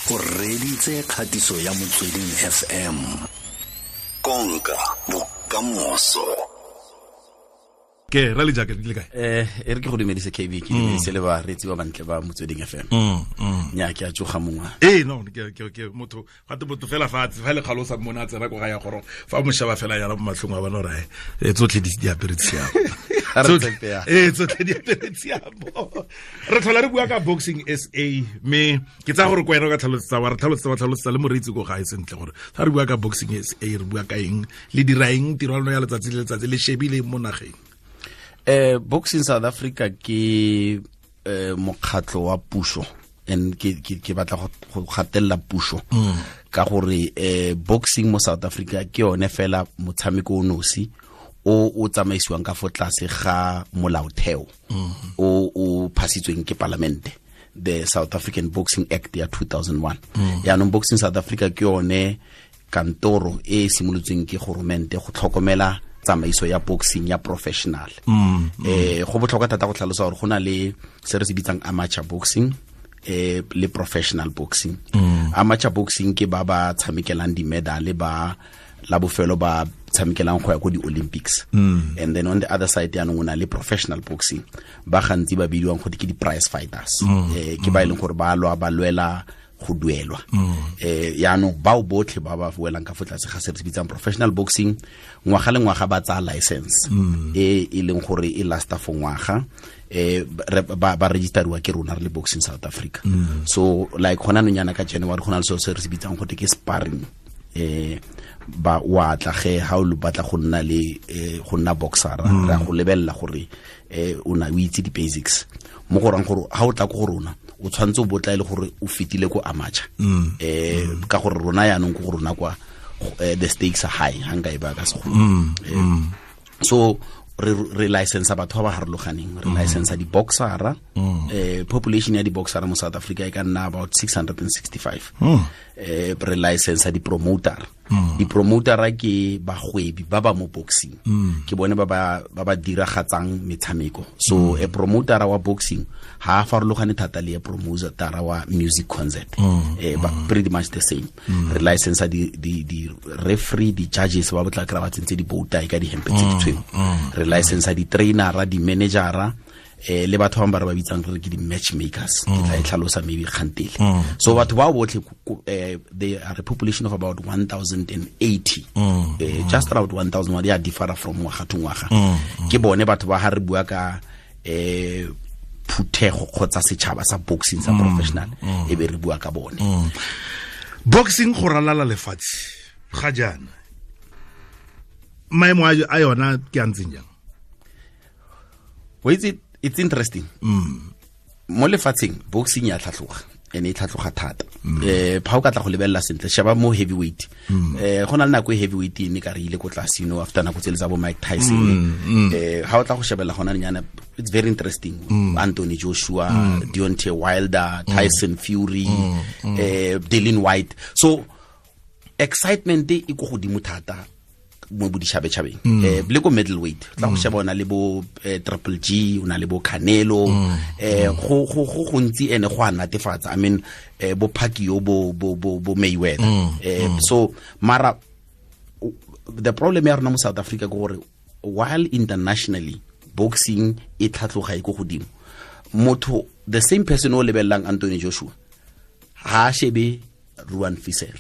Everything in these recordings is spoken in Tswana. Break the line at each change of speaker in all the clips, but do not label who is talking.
O reditse kgatiso ya Motsweding FM. Konka bokamoso.
Ke ra le jacket le kae?
E re ke go dumedise KB, ke dumedise le bareetsi ba bantle ba Motsweding FM. Nya ke a tsoga mongwe.
Ee, no, ke motho gate motho fela fa fa le kgalosa mmona a tsena ko ga ya goro fa moshaba fela yana mo matlhong a bona gore e tsotlhe di apere tshiamo. Ee, tsotlhe di apere tshiamo. Re tlhola re bua ka Boxing SA, mme ke tsaya gore ko wena o ka tlhalosetsa wa re tlhalosetsa wa tlhalosetsa le moreetsi ko gae sentle gore fa re bua ka Boxing SA re bua ka eng, le dira eng, tiro ya lona ya letsatsi le letsatsi le shebile mo nageng.
Boxing South Africa ke mokgatlo wa puso, and ke batla go gatelela puso ka gore boxing mo South Africa ke yone fela motshameko o nosi o o tsamaisiwang ka fo tlase ga molaotheo o o phasitsweng ke palamente, the South African Boxing Act ya 2001. Yaanong Boxing South Africa ke yone kantoro e simolotsweng ke goromente go tlhokomela tsamaiso ya boxing ya professional. Go botlhokwa thata go tlhalosa gore go na le se re se bitsang amateur boxing le professional boxing. Amateur boxing ke ba ba tshamekelang di-medal, ba la bofelo ba tshamekelang go ya ko di-Olympics. And then on the other side yaanong o na le professional boxing, ba gantsi ba bidiwang go ke di-prize fighters. Ke ba e leng gore ba lwa ba lwela go duelwa. Yaanong bao botlhe ba ba welang ka fo tlase ga se re se bitsang professional boxing, ngwaga le ngwaga ba tsaya license e e leng gore e lasta for ngwaga, ba registeriwa ke rona re le Boxing South Africa. So like gona nonyana ka January go na le selo se re se bitsang gote ke sparring. Ba wa tla ge ha o batla go nna le go nna boxer, ra go lebella gore o na o itse di basics mo go rang gore ha o tla ko go rona o tshwantse o botla ile gore o fitile ko amateur, ka gore rona yaanong ko go rona kwa the stakes are high ha nka e ba ka segolo. So re license batho ba ba harologaneng, re license di-boxera. Population ya di-boxera mo South Africa e ka nna about 665. Re license di-promoter. Di-promotera ke bagwebi ba ba mo boxing, ke bone ba ba diragatsang metshameko. So a promotera wa boxing ha a farologane thata le a promotera wa music concert, ba pretty much the same. Re license di referee, di judges ba botla kry ba tsentse di-bow tie ka dihempe tse di tshweu. Re license di-trainera, di-managera, le batho bangwe ba re ba bitsang re ke di-matchmakers, ke tla e tlhalosa maybe kgantele. So batho bao botlhe, they are a population of about 1080, just around 1000, ya differ from ngwaga to ngwaga. Ke bone batho ba ha re bua ka phuthego kgotsa setšhaba sa boxing sa professional, e be re bua ka bone.
Boxing go ralala lefatshe ga jaana, maemo a yona ke a ntseng jang?
Well, it's interesting. Mo lefatsheng boxing ya tlhatlhoga, ene e tlhatlhoga thata. Fa o ka tla go lebelela sentle, sheba mo heavyweight. Go na le nako e heavyweight e ne ka re ile ko tlase, you know, after nako tsele tsa bo Mike Tyson. Ha o tla go shebella gona nyana, it's very interesting. Anthony Joshua, Deontay Wilder, Tyson Fury, Dillian Whyte. So excitement e ko godimo thata mo boditšhabatšhabeng. Le ko middleweight tla go sheba, o na le bo Triple G, o na le bo Canelo, go go go gontsi ene go a natefatsa. I mean, bo Pacquiao, bo Mayweather. So mara the problem ya rona mo South Africa ke gore while internationally boxing e tlhatloga e ko godimo, motho, the same person o lebelelang Anthony Joshua ha a shebe Ruan Visser.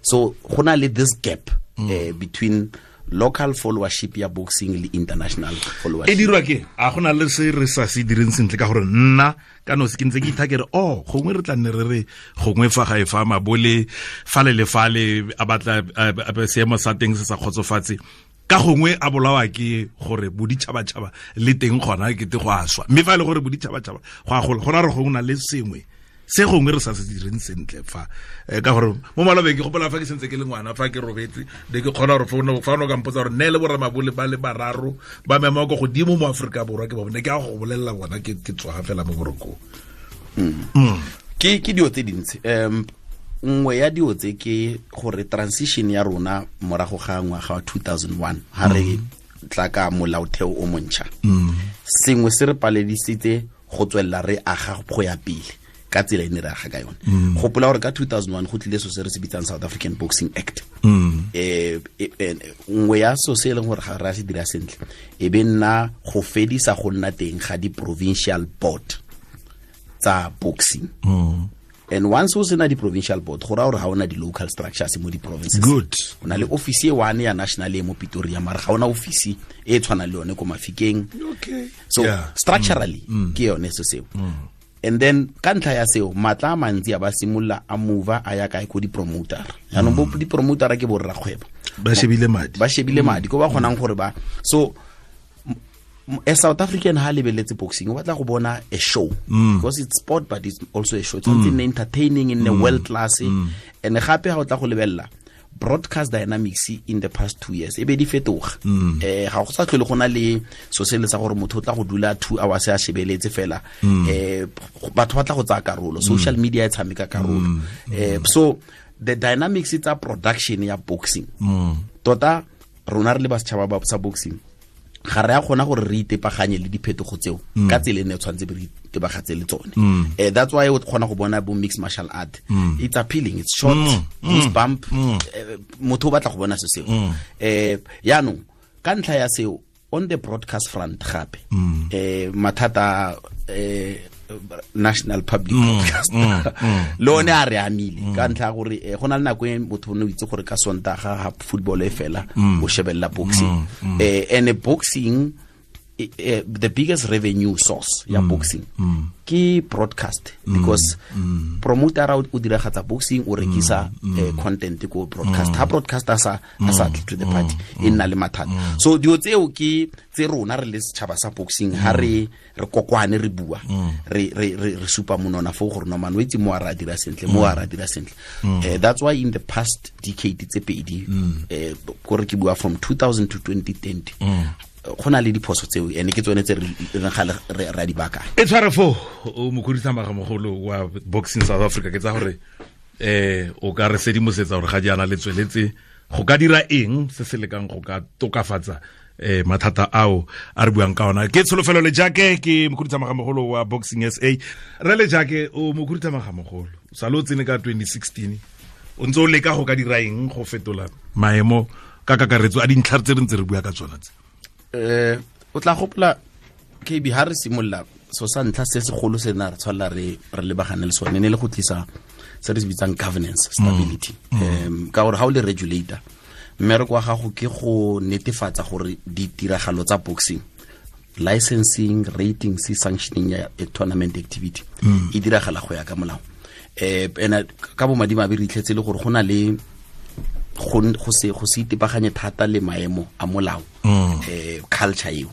So go na le this gap between local followership ya boxing le international followership.
E dirwa ke a gona le se re sa se direng sentle, ka gore nna ka nosi ke ntse ke ithakere o gongwe re tla nne re re gongwe fa ga e fa mabole fale le fale a batla seemo sa teng se sa kgotsofatse, ka gongwe a bolawa ke gore boditšhabatšhaba le teng gona ke te go a swa, mme fa e le gore boditšhabatšhaba go a gola, go ra re gongwe na le sengwe se gongwe re sa se direng sentle fa, ka gore mo malobeng ke gopola fa ke sentse ke le ngwana, fa ke robetse ne ke kgona gore fa o ka mpotsa gore nne le boramabole ba le bararo ba mema ko godimo mo Aforika Borwa ke ba bone, ke a go bolelela bona ke tswa fela mo borokong.
Ke dio tse dintsi. Nngwe ya dio tse ke gore transition ya rona morago ga ngwaga wa 2001 ha re tla ka molaotheo o montšha, sengwe se re paledisitse go tswelela re aga go ya pele. ka tsela e ne re aga ka yone. Gopola gore ka 2001 go tlile so se re se bitsang South African Boxing Act. Nngwe ya so se e leng gore ga re a se dira sentle e be nna go fedisa go nna teng ga di-provincial board tsa boxing. And once o sena di-provincial board, go raya gore ga ona di-local structures mo di-provinces.
Good.
O na le office e one ya national e mo Pretoria, mara ga ona office e tshwanang le yone ko Mafikeng.
Okay.
So structurally ke yone se seo. And then ka ntlha ya seo, matla a mantsi a ba simolola a move a ya kae, ko di-promoter. Jaanong bo di-promoter ke borrakgwebo,
ba shebile madi,
ba shebile madi ko ba kgonang gore ba. So a South African ha lebeletse boxing, o batla go bona a show, because it's sport but it's also a show. It's something entertaining in the world class. And gape ha o tla go lebella broadcast dynamics in the past 2 years, e be di fetoga. Ga go sa tlhole go na le so se le sa gore motho o tla go dula 2 hours a shebeletse fela. Batho ba tla go tsaya karolo, social media e tshameka karolo. So the dynamics tsa production ya boxing, tota rona re le ba setšhaba ba sa boxing, ga re a kgona gore re itepaganye le diphetogo tseo ka tsela e ne tshwanetse re itebagatse le tsone. That's why o kgona go bona bo mixed martial art. It's appealing, it's short, goosebump, motho o batla go bona se seo. Yaanong ka ntlha ya seo, on the broadcast front gape, mathata national public broadcast le one a re amile ka ntlha ya gore go na le nako e motho o ne o itse gore ka Sontaga ha football e fela o shebella boxing. And boxing, the biggest revenue source ya boxing ke broadcast, because promoter o diragatsa boxing, o rekisa content ko broadcast. Ha broadcast a sa tle to the party, e nna le mathata. So dilo tseo ke tse rona re le setšhaba sa boxing ha re kokwane, re bua, re supa monona fo gore no man o itse mo a ra dira sentle, mo a ra dira sentle. That's why in the past decade tse pedi, kore ke bua from 2000 to 2020, go na le diphoso tseo, ene ke tsone tse re gale re a di baakanya.
E tshware fo o mokhuduthamaga mogolo wa Boxing South Africa, ke tsa gore o ka re sedimosetsa gore ga jaana le tsweletse go ka dira eng se se lekang go ka tokafatsa mathata ao a re buang ka ona. Ke Tsholofelo Lejake, ke mokhuduthamaga mogolo wa Boxing SA. Re Lejake, o mokhuduthamaga mogolo sa le o tsene ka 2016, o ntse o leka go ka dira eng go fetola maemo ka kakaretso a dintlha tse re ntse re bua ka tsona tse?
O tla gopola KB ha re simolola, so sa ntlha se segolo se na re tshwanela re lebagane le sone ne le go tlisa se re se bitsang governance stability. Ka gore ha o le regulator, mmereko wa gago ke go netefatsa gore ditiragalo tsa boxing, licensing, ratings, sanctioning ya tournament activity e diragala go ya ka molao. Ena ka bomadimabe re itlhetse le gore go na le go se itebaganye thata le maemo a molao, culture eo.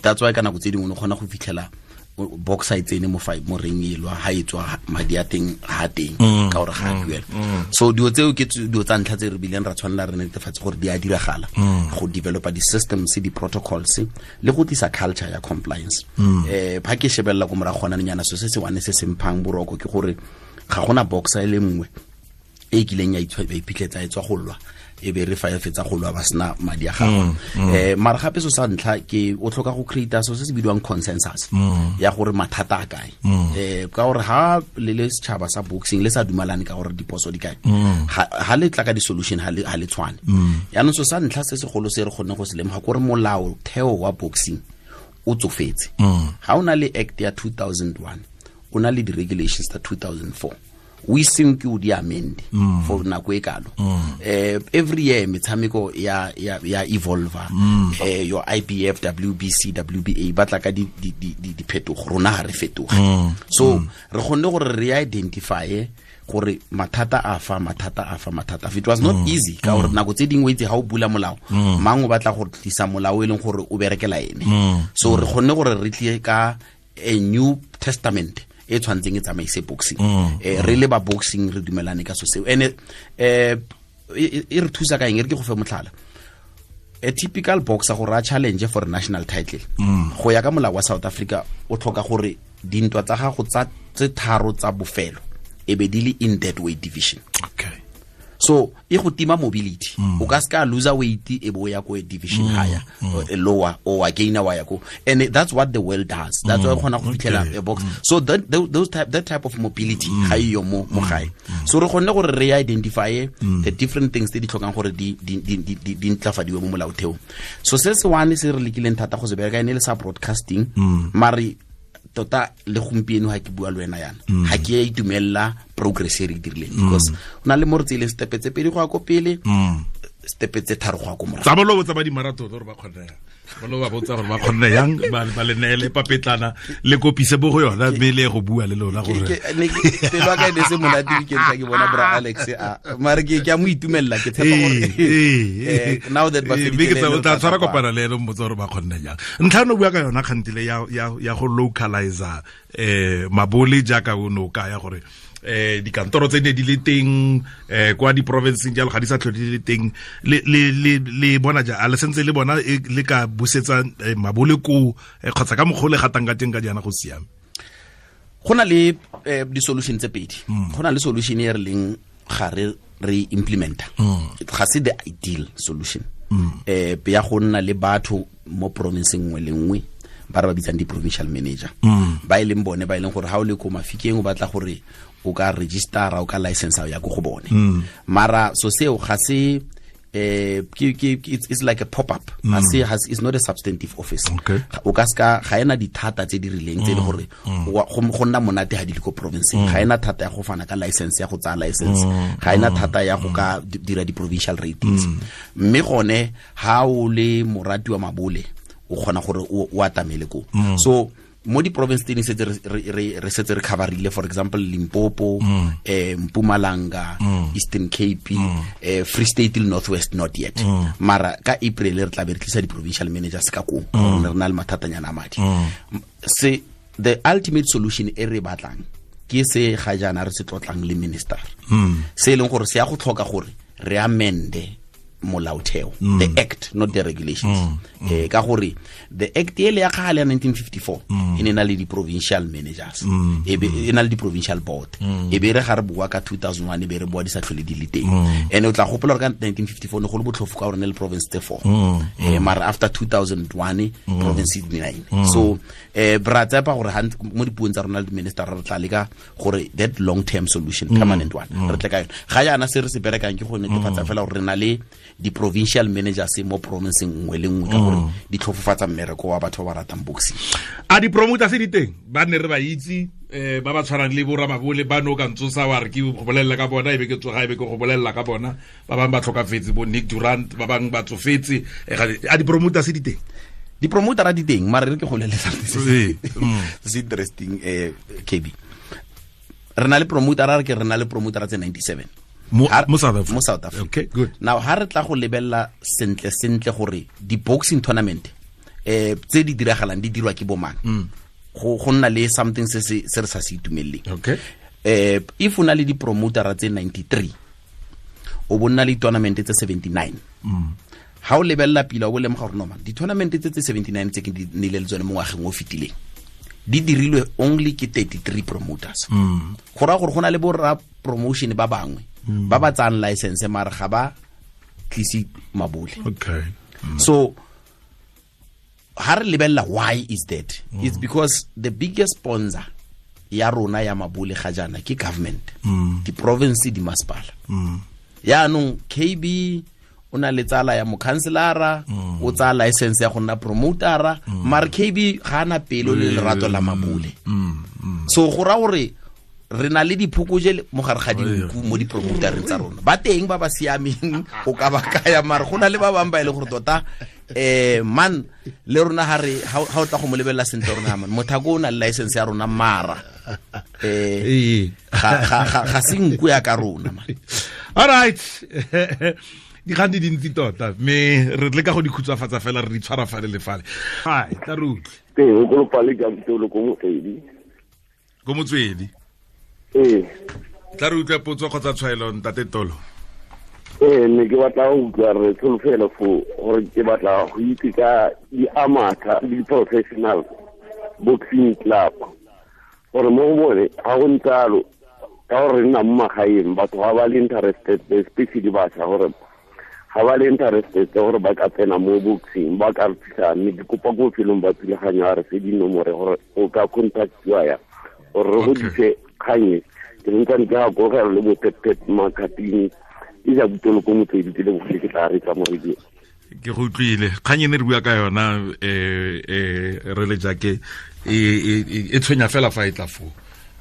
That's why ka nako tse dingwe o kgona go fitlhela boxer e tsene mo mo ring e lwa, ha e tswa madi a teng ha teng, ka gore ga a duela. So dilo tseo ke dilo tsa ntlha tse re bileng ra tshwanela re netefatse gore di a diragala, go developa di-systems, di-protocols le go tlisa culture ya compliance. Ha ke shebella ko morago gona nyana, so se se one se se mphang boroko ke gore ga gona boxer e le nngwe e kileng ya iphitlhetsa e tswa go lwa, e be re fa e fetsa go lwa ba sena madi a gagwe. Mara gape so sa ntlha ke o tlhoka go create so se se bidiwang consensus ya gore mathata a kae. Ka gore ha le le setšhaba sa boxing le sa dumalane ka gore diphoso di kae, ha le tla ka di-solution ha le tshwane. Yaanong so sa ntlha se segolo se re kgonne go se lemoga kore molao theo wa boxing o tsofetse. Ha o na le act ya 2001, o na le di-regulations tsa 2004, we seng ke o di amend for nako e kalo. Every year metshameko ya evolve. Your IBF, WBC, WBA ba tla ka di diphetogo, rona ha re fetoge. So re kgonne gore re identify gore mathata a fa, mathata a fa, mathata. It was not easy ka gore nako tse dingwe itse ha o bula molao, mang o batla go tlisa molao e leng gore o berekela ene. So re kgonne gore re tle ka a new testament e tshwantseng e tsamaise boxing. Re le ba boxing re dumelane ka so seo. Ene e re thusa ka eng? E re ke go fe motlhala. A typical boxer gore a challenge for a national title, go ya ka molao wa South Africa, o tlhoka gore dintwa tsa gago tsa tse tharo tsa bofelo e be di le in that weight division.
Okay.
So e go tima mobility. O ka ska lose weight e bo ya ko division higher lower or gain wa ya ko, and that's what the world does. That's why kgona go fitlhela a box. So that those type that type of mobility ga iyo mo gae. So re kgonne gore re identify the different things tse di tlhokang gore di ntlafadiwe mo molaotheo. So se se one se re lekileng thata go se bereka ene le sa broadcasting, mare tota le gompieno ha ke bua le wena yana ha ke a itumella progress e re dirileng, because o na le mo re tseileng step tse pedi go ya ko pele, step tse tharo go ya ko morago.
Tsa bolo tsa ba di marathon gore ba kgonne yang, bolo ba botsa gore ba kgonne yang, ba le neele papetlana le kopise bo go yona mme le go bua le lona gore
pelo ka ene se monate weekend ke bona bra Alex a mare ke a mo itumella, ke tshepa gore now that ba
fedile o tla tshwara kopana le ene mmotsa gore ba kgonne jang. Ntlha no bua ka yona kgantile ya go localizer mabole jaaka o no ka ya gore dikantoro tse ne di le teng kwa di province jalo ga di sa tlhole di le teng, le bona ja a le sentse le bona le ka busetsa mabole ko kgotsa ka mokgwa le gatang ka teng ka jaana go siame?
Go na le di-solution tse pedi. Go na le solution e re leng ga re implementa, ga se the ideal solution, ya go nna le batho mo province nngwe le nngwe ba re ba bitsang di-provincial manager, ba e leng bone ba e leng gore ha o le ko Mafikeng o batla gore o ka registera, o ka license ya go bone. Mara so seo ga se it's like a pop up. Ga se it's not a substantive office. O ka ska ga ena dithata tse di rileng tse le gore go nna monate ha di le ko province. Ga ena thata ya go fana ka license ya go tsaya license, ga ena thata ya go ka dira di provincial ratings. Mme gone ha o le morati wa mabole o kgona gore o atamele ko. So mo di province tse setse re setse re coverile, for example Limpopo, Mpumalanga, Eastern Cape, Free State le North West not yet. Mara ka April re tla be re tlisa di provincial managers ka ko re na le mathatanyana a madi. Se the ultimate solution e re batlang ke se ga jaana re se tlotlang le minister, se e leng gore se ya go tlhoka gore re amende molaotheo, the act, not the regulations. Ka gore the act ele ya kgale ya 1954 e ne na le di-provincial managers, e be e na le di-provincial board, e be re ga re bua ka 2001 e be re bua di sa tlhole di le teng. And o tla gopola gore ka 1954 ne go le botlhofo ka gore ne le province tse 4, mara after 2001 province di 9. So bra tsepa gore mo dipuong tsa rona le di-minister re tla leka gore that long term solution, permanent one, re tle ka yone. Ga jaana se re se berekang ke go netefatsa fela gore re na le di-provincial managers mo provinceng nngwe le nngwe, ka gore di tlhofofatsa mmereko wa batho ba ba ratang boxing.
A di-promoter se di teng ba nne re ba itse, ba ba tshwanang le bo Ramabole ba no ka ntsosa wa re ke go bolelela ka bona, e be ke tsoga e be ke go bolelela ka bona, ba bangwe ba tlhokafetse bo Nick Durant, ba bangwe ba tsofetse. A di-promoter se di teng?
Di-promoter a di teng, mare re ke go bolelela se se interesting, KB. Re na le promoter, a re ke re na le promoter tse 97
mo South Africa.
Mo South Africa.
Okay, good.
Now ha re tla go lebella sentle sentle gore di boxing tournament tse di diragalang di dirwa ke bomang, go nna le something se se re sa se itumeleng.
Okay.
If o na le di promoter tse 93, o bonna le tournament tse 79. Ha o lebella pila o bo lemoga gore no man, di tournament tse 79 tse ke di nile le tsone mo ngwageng o fetileng di dirilwe only ke 33 promoters. Go raya gore go na le bo ra promotion ba bangwe ba ba tsayang license mare ga ba tlise mabole.
Okay.
So ha re lebella why is that? It's because the biggest sponsor ya rona ya mabole ga jaana ke government, di province, di masepala. Yaanong KB o na le tsala ya mokhanselara, o tsaya license ya go nna promotera, mare KB ga ana pelo le lerato la mabole. So go raya gore re na le diphokoje mo gare ga dinku mo di-promotereng tsa rona. Ba teng ba ba siameng go ka ba kaya, mare go na le ba bangwe ba e leng gore tota man le rona ha re ha o tla go mo lebelela sentle rona man mothako o na le license ya rona mara ga se nku ya ka rona man.
All right. Dikgang di dintsi tota mme re leka go di khutshwafatsa fela re di tshwara fale le fale. Hai, tla re utlwe.
Ee, o kolopale ka mtolo ko Motswedi.
Ko Motswedi.
Ee.
Tla re utlwe potso kgotsa tshwaelo ntate Tolo.
Ee, ne ke batla go utlwa re tsholofelo fo gore ke batla go itse ka di-amateur le di-professional boxing club gore mo go bone ga go ntsalo Ka gore nna mo magaeng batho ga ba le interested, especially bašwa, gore ga ba le interested gore ba ka tsena mo boxing, ba ka re thusa. Mme ke kopa ko bofelong ba thulaganyo a re fe dinomore gore o ka contactiwa ya gore re godise kgang e. Ke ntsane ke gakogela le bo-pet makatini e ja butolo ko Motswedi, ke lebogile, ke tla retsa mo radio.
Ke go utlwile kgang e ne re bua ka yona re le jake e tshwenya fela fa e tla foo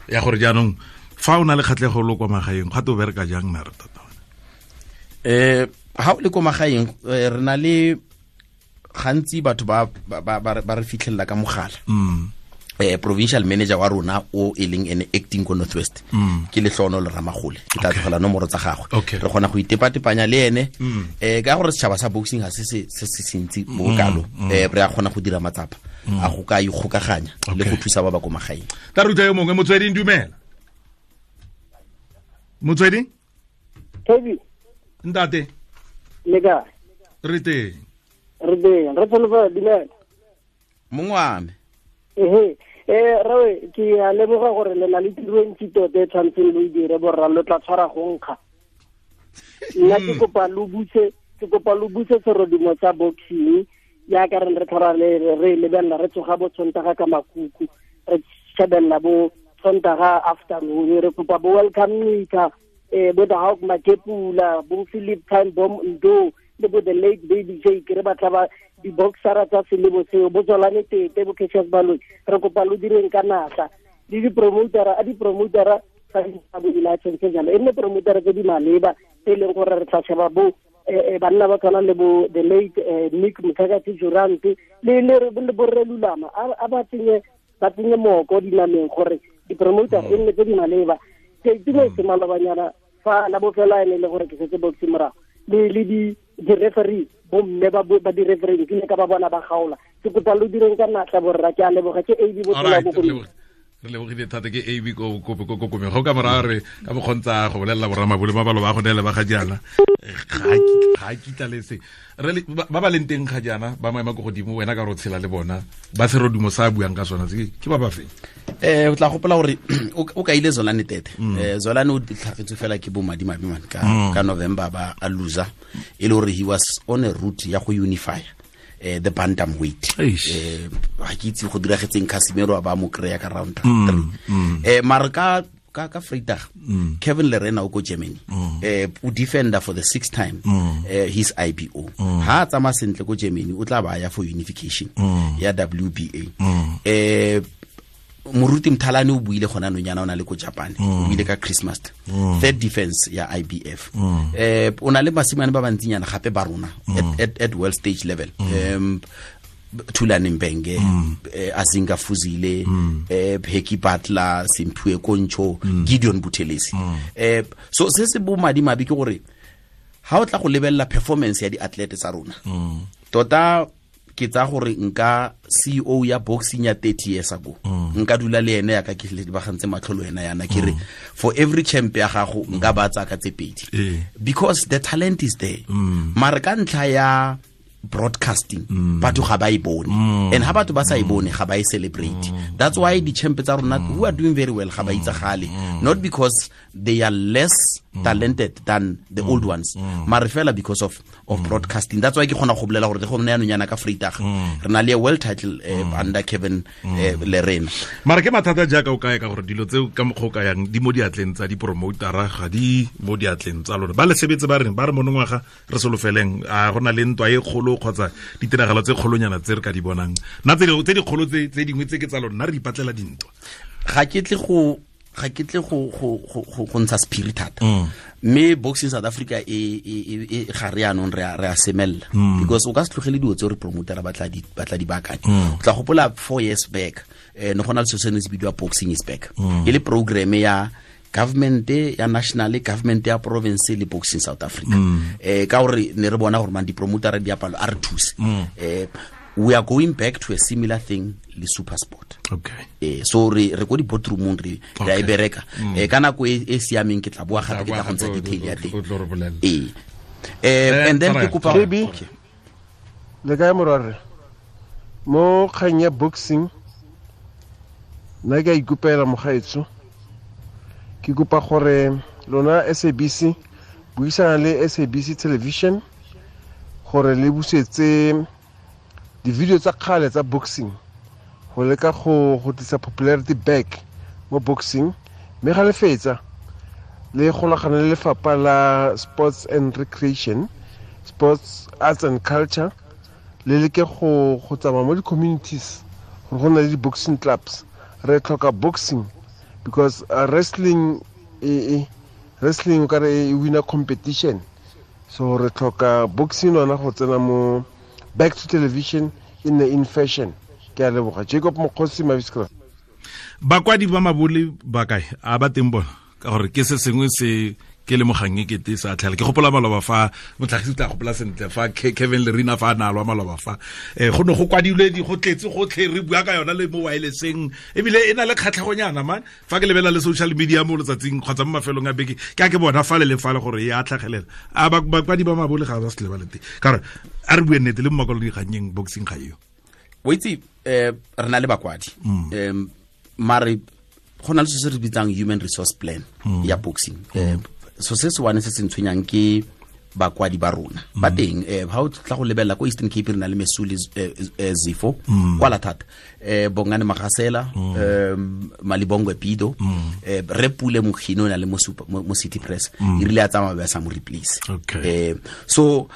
ya gore jaanong fa o na le kgatlhego lo kwa magaeng ga to bereka jang na re tota?
Ha o le ko magaeng, re na le gantsi batho ba ba re fitlhelela ka mogala. Provincial manager wa rona o e leng ene acting ko Northwest ke Lehlono le Ramagole, ke tla tlogela nomoro tsa gagwe, re kgona go itepatepanya le ene. Ka gore setšhaba sa boxing ga se se se sentsi mo kalo, re a kgona go dira matsapa a go ka ikgokaganya le go thusa ba ba ko magaeng.
Tla re utlwa yo mongwe. Motsweding, dumela. Motsweding.
Toby.
Ntate.
Le kae?
Re teng.
Re teng. Re tsholofela, dumela.
Mongwe.
Ehe, rawe ke a leboga gore le na le tiro e ntsi tota e tshwanetseng lo e dire borra, lo tla tshwara go nkga. Nna ke kopa lo buse, ke kopa lo buse serodumo sa boxing jaaka re re tlhola re lebelela, re tsoga bo Sontaga ka makuku, re shebelela bo Sontaga afternoon. Re kopa bo Welcome Nika, bo the Hawk Makepula, bo Philip Time Bomb Ndo le bo the late Baby Jake, re batla ba di-boxera tsa selebo seo, bo Tswalane Tete, bo Cassius Baloyi. Re kopa lo direng ka natla le di-promotera, a di-promotera tsa bo di-license jalo, e nne promotera tse di maleba tse e leng gore re tla sheba bo banna ba tshwana le bo the late Nick Mthakathi Durant le borre Lulama, a ba tsenye mooko dinameng gore di-promoter e nne tse di maleba. Ke itumetse malobanyana fa la bofelo ene le gore ke setse boxing morago le di-referee, bomme ba di-referee ke ne ka ba bona ba gaola. Ke kopa lo direng ka natla borra, ke a leboga. Ke AB Botola Bokone.
Re lebogile thata, ke AB ko Komeng. Go ka morago re ka mokgontsa go bolelela borramabole ba balo ba go neele ba ga jaana ga kitla le se ba ba leng teng ga jaana ba maema ko godimo, wena ka re o tshela le bona ba serodumo sa buang ka sona ke ba ba feng?
O tla gopola gore o kaile Zolane Tete. Zolane o tlhagetswe fela ke bo madimabe man ka November ba a loser, e le gore he was on a route ya go unify the bantam weight. Ga ke itse go diragetseng, Casimiro a ba mo kry-a ka round 3. Mara ka Vrydag, Kevin Lerena o ko Germany, o defender for the sixth time his IBO. Ha a tsamaya sentle ko Germany, o tla ba ya for unification ya WBA. Moruti Mthalane o buile gona nonyana o na le ko Japan, o buile ka Christmas, third defense ya IBF. O na le basimane ba bantsinyana gape ba rona at world stage level. Thulane Mbenge, Azinga Fuzile, Heki Butler, Simphiwe Koncho, Gideon Buthelezi. So se se bo madimabe ke gore ha o tla go lebella performance ya di-athlete tsa rona, tota ke tsa gore nka CEO ya boxing ya 30 years ago, nka dula le ene ya ka ke lebagantse matlho le wena yana, ke re for every champ ya gago nka ba tsaya ka tse pedi, because the talent is there. Mara ka ntlha ya broadcasting batho ga ba e bone, and ha batho ba sa e bone ga ba e celebrate. That's why the champ tsa rona who are doing very well ga ba itsagale, not because they are less talented than the old ones, mara fela because of broadcasting. That's why ke kgona go bolela gore le go nna yanonyana ka Vrydag re na le a world title under Kevin Lerena.
Mara ke mathata jaaka o kae ka gore dilo tseo ka mokgwa o ka yang di mo diatleng tsa di-promotera, ga di mo diatleng tsa lona ba le sebetse ba reng ba re monongwaga re solofeleng a go na le ntwa e kgolo kgotsa ditiragalo tse kgolonyana tse re ka di bonang nna tse dikgolo tse dingwe tse ke tsa lona, re ipatlela dintwa.
Ga ke tle go ntsha sephiri thata, mme Boxing South Africa e ga re yanong re a semella, because o ka se tlogele dilo tse re promotera ba tla di baakanya. O tla gopola 4 years back ne go na le selo se ne se bidiwa Boxing is Back, e le programme ya government ya national, government ya province le Boxing South Africa. Ka gore ne re bona gore man di-promotera di apalo a re thuse. We are going back to a similar thing le Super Sport.
Okay.
So re ko di-boardroomong re a e bereka. Ka nako e siameng ke tla boa gape ke tla go ntsha detail ya teng. And then ke kopa
okay. Le kae morwarre? Mo kgang ya boxing nna ke a ikopela mogaetsho. Ke kopa gore lona SABC buisana le SABC Television gore le busetse di-video tsa kgale tsa boxing go leka go tlisa popularity back mo boxing, mme ga le fetsa le golagana le lefapha la Sports and Recreation, Sports, Arts and Culture, le leke go tsamaya mo di-communities gore go na le di-boxing clubs. Re tlhoka boxing because wrestling wrestling o kare e winner competition, so re tlhoka boxing yona go tsena mo back to television in the in fashion. Ke a leboga. Jacob Mokgosi, Maviskra.
Bakwadi ba mabole ba kae? A ba teng bona? Ka gore ke se sengwe se ke le mogang e kete sa tlhela. Ke gopola maloba fa motlhagisi tla gopola sentle fa Kevin Lerina fa a na lwa maloba fa go ne go kwadilwe di go tletse gotlhe re bua ka yona le mo wirelesseng, ebile e na le kgatlhegonyana man. Fa ke lebelela le social media mo letsatsing kgotsa mo mafelong a beke, ke a ke bona fa le le fale gore e a tlhagelela. A bakwadi ba mabole ga ba se le ba le teng, ka gore a re bue nnete le mo makwalo dikgannyeng boxing ga eo.
O itse re na le bakwadi, mare go na le se re bitsang human resource plan ya boxing. So se se wane se se ntshwenyang ke bakwadi ba rona ba teng. Ha o tla go lebelela ko Eastern Cape re na le Mesuli Zifo kwala thata, Bongane Magasela, Malibongwe Pido, re Pule Mokhino na le mo City Press, e rile a tsamaya ba sa mo replace. So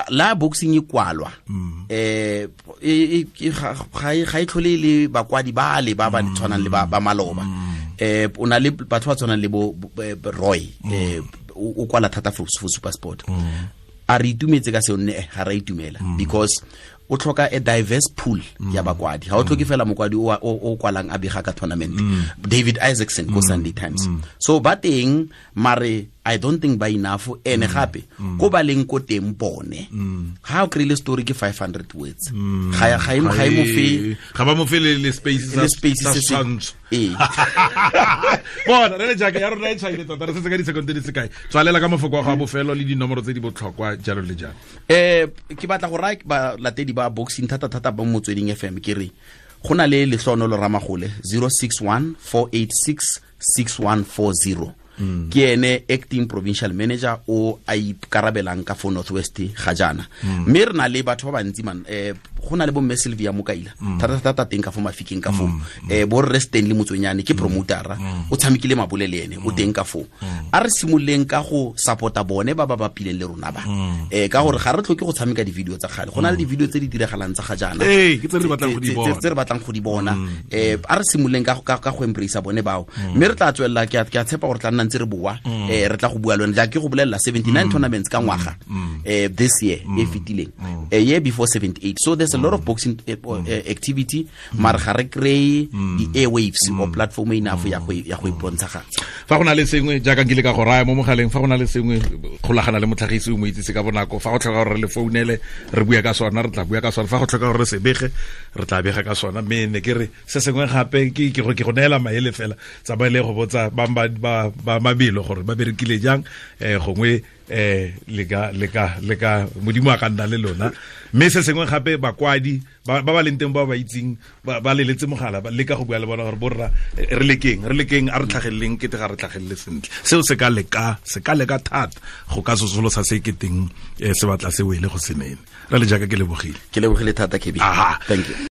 la boxing e kwalwa ga e tlhole le bakwadi ba le ba ba tshwanang le ba maloba. O na le batho ba tshwanang le bo Roy, o kwala thata for SuperSport. A re itumetse ka seo? Nne ga re itumela, because o tlhoka a diverse pool ya bakwadi. Ga o tlhoke fela mokwadi o kwalang a bega ka tournament. David Isaacson ko Sunday Times. So ba teng, mare I don't think ba enough. Ene gape ko ba leng ko teng bone, ga o kry-ile story ke 500 words, ga e mo fe,
ga ba mo fe le space sa setshwantsho. Bona re le jaaka ya rona e tshwaile tota, re setse ka disekonte di sekae. Tswalela ka mafoko a go a bofelo le dinomoro tse di botlhokwa jalo le jalo.
Ke batla go raya balatedi ba boxing thata thata ba Motsweding FM, ke re go na le Lehlonolo Ramagole 061 486 6140. Ke ene acting provincial manager o a ikarabelang ka fo Northwest ga jaana. Mme re na le batho ba bantsi man, go na le bo Mme Sylvia Mokaila thata thata teng ka fo Mafikeng ka fo, bo Rre Stanley Motswenyane ke promotera, o tshamekile mabole le ene o teng ka fo. A re simololeng ka go supporta bone ba ba bapileng le rona ba, ka gore ga re tlhoke go tshameka di-video tsa kgale, go na le di-video tse di diragalang tsa ga jaana tse re batlang go di bona. A re simololeng ka go embrace bone bao, mme re tla tswelela. Ke a tshepa gore tla nna ntse re boa, re tla go bua le wena. Jaaka ke go bolelela 79 tournaments ka ngwaga, this year e fetileng, year before 78. So there's a lot of boxing activity, mare ga re kry di-airwaves or platform enough ya go ipontshagatsha.
Fa go na le sengwe jaaka nkile ka go raya mo mogaleng, fa go na le sengwe kgolagana le motlhagisi o mo itsise ka bonako. Fa go tlhoka gore re le founele re bua ka sona, re tla bua ka sona. Fa go tlhoka gore re se bege, re tla bega ka sona. Mme ne ke re se sengwe gape ke go neela maele fela, tsamaele go botsa ba mabelo gore ba berekile jang, gongwe le ka modimo a ka nna le lona. Mme se sengwe gape, bakwadi ba ba leng teng ba ba itseng ba leletse mogala, ba leka go bua le bona gore borra re lekeng a re tlhageleleng kete ga re tlhagelele sentle. Seo se ka leka thata go ka sosolosa se keteng se batla se wele go senene. Re le jaaka ke lebogile.
Ke lebogile thata, Kebi. Thank you.